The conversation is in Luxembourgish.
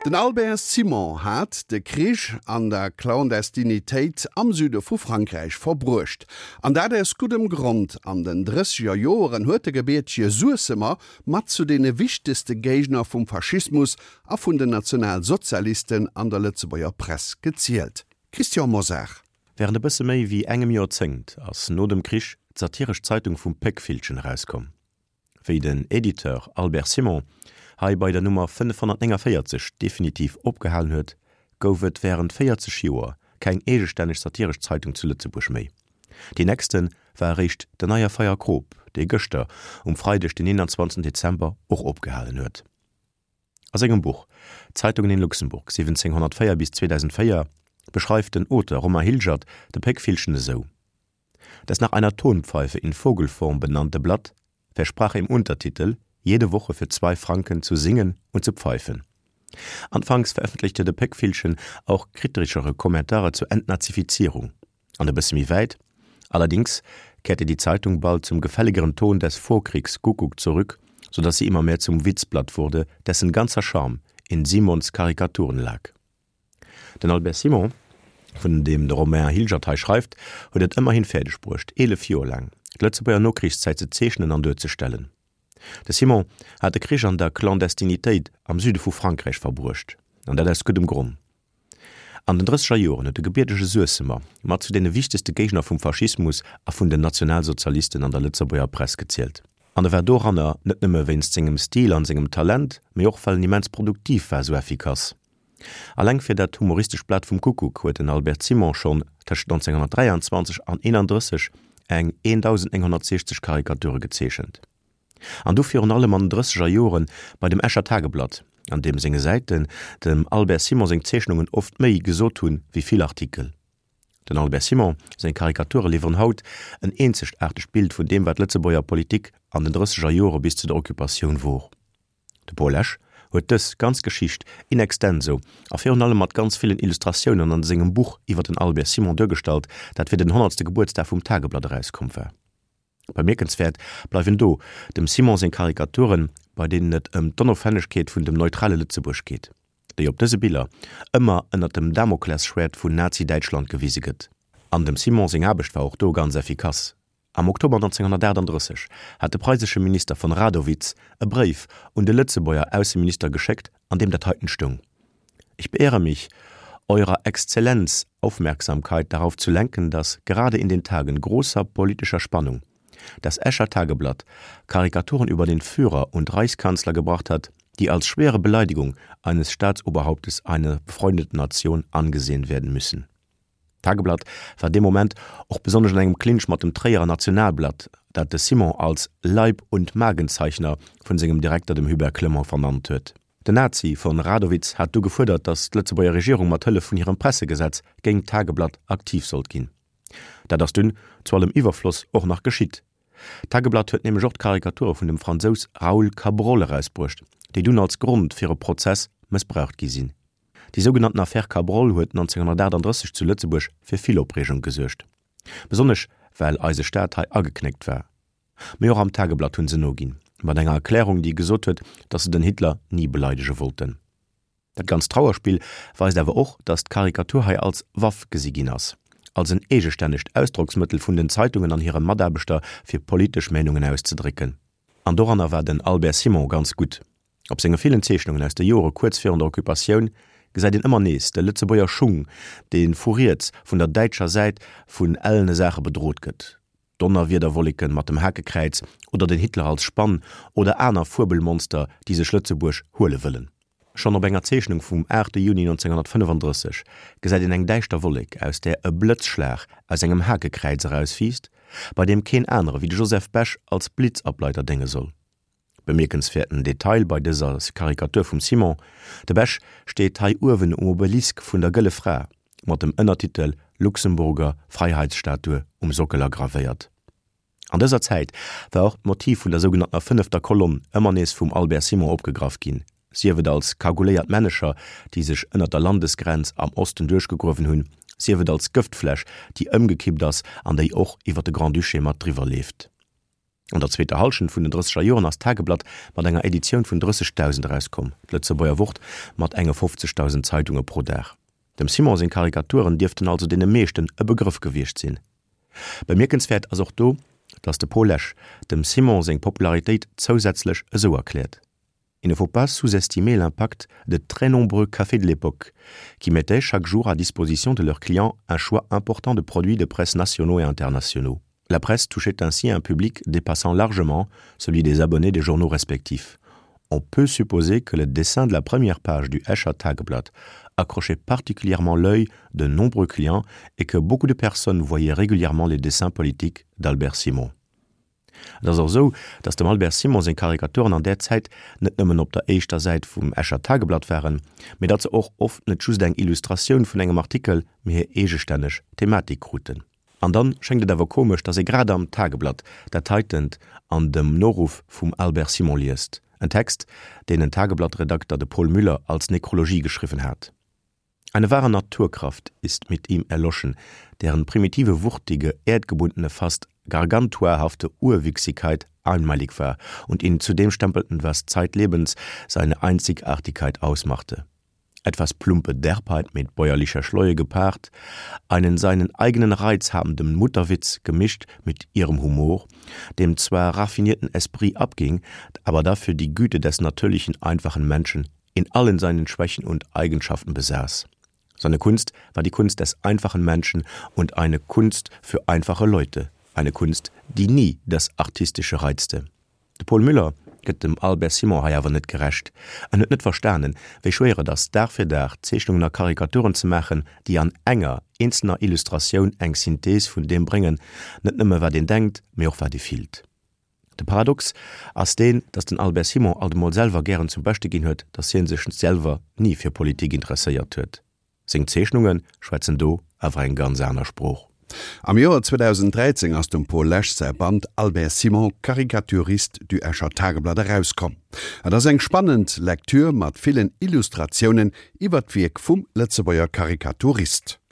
Den Albert Simon hat de Krich an der Clandestinitéit am Süde vu Frankräich verbruecht. An dat aus guddem Grond, An den drësseger Joeren huet de gebiertege Suessemer mat zu deene wichtegste Géigner vum Faschismus a vun den Nationalsozialisten an der Lëtzebuerger Press gezielt. Christian Mosar. Wärend e bësse méi wéi engem Joerzéngt ass no dem Krich d'satiresch Zeitung vum Péckvillchen erauskomm. Wéi den Editeur Albert Simon hei bei der Nummer 549 definitiv opgehalen huet, gouf et wärend 40 Joer keng eegestänneg satiresch Zeitung zu Lëtzebuerg méi. Déi nächste war eréischt den Neie Feierkrop, dee gëschter, um Freideg den 21 Dezember, och opgehalen huet. A sengem Buch Zeitungen in Luxemburg 1704 bis 2004 beschreift den Auteur Romain Hilgert de Péckvillchen esou, Das nach einer Tonpfeife in Vogelform benannte Blatt versprach im Untertitel, jede Woche für zwei Franken zu singen und zu pfeifen. Anfangs veröffentlichte de Péckvillchen auch kritischere Kommentare zur Entnazifizierung. An e bësse méi wäit, Allerdings kehrte die Zeitung bald zum gefälligeren Ton des Vorkriegs-Kuckuck zurück, so dass sie immer mehr zum Witzblatt wurde, dessen ganzer Charme in Simons Karikaturen lag. Den Albert Simon, vun deem de Romain Hilgert hei schreift, huet et ëmmerhin fäerdeg bruecht, 11 Joer laang d'Lëtzebuerger Nokrichszäit ze zeechnen an duerzestellen. De Simon hat de Krich an der Clandestinitéit am Süde vu Frankräich verbruecht, an dat aus guddem Gronn. An den drësseger Joren huet de gebiertege Suessemer mat zu deene wichtegste Géigner vum Faschismus a vun den Nationalsozialisten an der Lëtzebuerger Press gezielt. An e war doranner net nëmme wéinst sengem Stil an sengem Talent, mee och well en immens produktiv war, sou effikass. Alleng fir dat humoristescht Blat vum Kuckuck huet den Albert Simon schonn tëscht 1923 an 31 eng 1.960 Karikature gezeechent. An du virun allem an den drësseger Jore bei dem Escher Tageblatt, an deem senge Säiten dem Albert Simon seng Zeechnungen oft méi gesot hunn wéi vill Artikel. Den Albert Simon seng Karikature liwweren haut en eenzegaartegt Bild vun deem wat d'Lëtzebuerger Politik an den drësseger Jore bis zu der Occupatioun wor. De Paul Esch huet dës ganz Geschicht in extenso a virun allem mat ganz villen Illustratiounen an sengem Buch iwwer den Albert Simon duergestallt, dat fir den honnertste Gebuertsdag vum Tageblatt erauskomm war. Bemierkenswäert bleiwen do dem Simon seng Karikaturen, bei deenen et ëm d'Onofhängegkeet vun dem neutrale Lëtzebuerg geet, déi op dëse Biller ëmmer ënner dem Damoklesschwäert vun Nazi-Däitschland gewise gëtt. An dem Simon seng Aarbecht war och do ganz effikass. Am Oktober 1938 hat de preisesche Minister von Radowitz e Bréif un de Lëtzebuerger Ausseminister geschéckt, an deem dat heiten stoung, Ich beehre mich, Eurer Exzellenz Aufmerksamkeit darauf zu lenken, dass gerade in den Tagen großer politischer Spannung das Escher Tageblatt Karikaturen über den Führer und Reichskanzler gebracht hat, die als schwere Beleidigung eines Staatsoberhauptes einer befreundeten Nation angesehen werden müssen. D'Tageblatt war dee Moment och besonnesch an engem Clinch mat dem Tréierer Nationalblatt, dat de Simon als Leib und Magenzeichner vun sengem Direkter, dem Hubert Clement, vernannt huet. Den Nazi von Radowitz hat du gefuerdert, datt d'Lëtzebuerger Regierung mat Hëllef vun hirem Pressegesetz géint d'Tageblatt aktiv sollt ginn. Dat ass dunn, zu allem Iwwerfloss, och nach geschitt. D'Tageblatt huet nämlech och d'Karikature vun dem Fransous Raoul Cabrol erausbruecht, déi dunn als Grond fir e Prozess mëssbraucht gi sinn. Déi sougenannten Affaire Cabrol huet 1938 zu Lëtzebuerg fir vill Opreegung gesuergt. Besonnesch well eise Staat hei ageknéckt war. Mee och am Tageblatt hunn se noginn, mat enger Erklärung, déi gesot huet, datt se den Hitler ni beleidege wollten. Dat ganzt Trauerspill weist awer och, datt d'Karikatur hei als Waff gesi ginn ass, als en eegestännegt Ausdrocksmëttel vun den Zeitungen an hire Mataarbechter fir politesch Meenungen auszedrécken. An doranner war den Albert Simon ganz gutt. Op senge villen Zeechnungen aus de Jore kuerz virun der Occupatioun gesäit een ëmmer nees de Lëtzebuerger Schung, dee vu riets, vun der däitscher Säit, vun ellene Saache bedrot gëtt, Donnerwiederwolleken mat dem Hakekräiz oder den Hitler als Spann oder aner Fuebelmonster, déi sech Lëtzebuerg huele wëllen. Schonn op enger Zeechnung vum 8 Juni 1935 gesäit een eng däischter Wollek, aus där e Blëtzschlag aus engem Hakekräiz erauswiisst, bei deem keen anere wéi de Joseph Bech als Blitzableiter dénge soll. Bemierkenswäerten Detail bei dëser Karikatur vum Simon, De Bech steet hei uewen um Obelisk vun der Gëlle Fra, mat dem Ënnertitel Luxemburger Freiheitsstatue um Sockel agravéiert. An dëser Zäit war och d'Motiv vun der sougenanntener fënnefter Kolonn ëmmer nees vum Albert Simon opgegraff ginn, sief et als kaguléiert Männecher, déi sech ënner der Landesgrenz am Osten duerchgegruewen hunn, sief et als Gëftfläsch, déi ëmgekippt ass an déi och iwwer de Grand-Duché mat driwwer leeft. An der zweeter Hallschent vun den drësseger Joren ass d'Tageblatt mat enger Editioun vun 30.000 erauskomm, d'Lëtzebuerger Wort mat enge 50.000 Zeitunge pro Dag. Dem Simon seng Karikaturen dierften also deene meeschten e Begrëff gewiescht sinn. Bemierkenswäert ass och do, datt de Paul Lesch dem Simon seng Popularitéit zousätzlech esou erkläert, Il ne faut pas sous-estimer l'impact de très nombreux cafés de l'époque, qui mettaient chaque jour à disposition de leurs clients un choix important de produits de presse nationaux et internationaux. La presse touchait ainsi un public dépassant largement celui des abonnés des journaux respectifs. On peut supposer que le dessin de la première page du Escher Tageblatt accrochait particulièrement l'œil de nombreux clients et que beaucoup de personnes voyaient régulièrement les dessins politiques d'Albert Simon. Et ass och esou, datt dem Albert Simon seng Karikaturen an där Zäit net nëmmen op der éischter Säit vum Escher Tageblatt waren, mee datt se och oft net just eng Illustratioun vun engem Artikel, mee hir eegestänneg Thematik kruten. An dann schéngt et awer komesch, datt ee grad am Tageblatt dat heitent an dem Noruff vum Albert Simon liest, en Text, deen en Tageblatt-Redakter, de Paul Müller, als Nekrologie geschriwwen hat. Eine wahre Naturkraft ist mit ihm erloschen, deren primitive, wuchtige, erdgebundene, fast gargantuahafte Urwüchsigkeit einmalig war und ihn zu dem stempelten, was zeitlebens seine Einzigartigkeit ausmachte. Etwas plumpe Derbheit mit bäuerlicher Schleue gepaart, einen seinen eigenen Reiz habenden Mutterwitz gemischt mit ihrem Humor, dem zwar raffinierten Esprit abging, aber dafür die Güte des natürlichen, einfachen Menschen in allen seinen Schwächen und Eigenschaften besaß. Seine Kunst war die Kunst des einfachen Menschen und eine Kunst für einfache Leute, eine Kunst, die nie das Artistische reizte. De Paul Müller gëtt dem Albert Simon hei awer net gerecht. En huet net verstanen, wéi schwéier et ass, Dag fir Dag Zeechnungen a Karikaturen ze maachen, déi an enger eenzelner Illustratioun eng Synthees vun deem bréngen, net nëmme wat een denkt, mee och wat ee fillt. De Paradox ass deen, datt den Albert Simon alt emol selwer gären zum Beschte ginn huet, datt hien sech selwer ni fir Politik interesséiert huet. Seng Zeechnunge schwätzen do awer eng ganz aner Sprooch. Am Joer 2013 ass dem Paul Lesch säi Band Albert Simon, Caricaturiste du Escher Tageblatt erauskomm. Et ass eng spannend Lektür mat villen Illustratiounen iwwer d'Wierk vum Lëtzebuerger Karikaturist.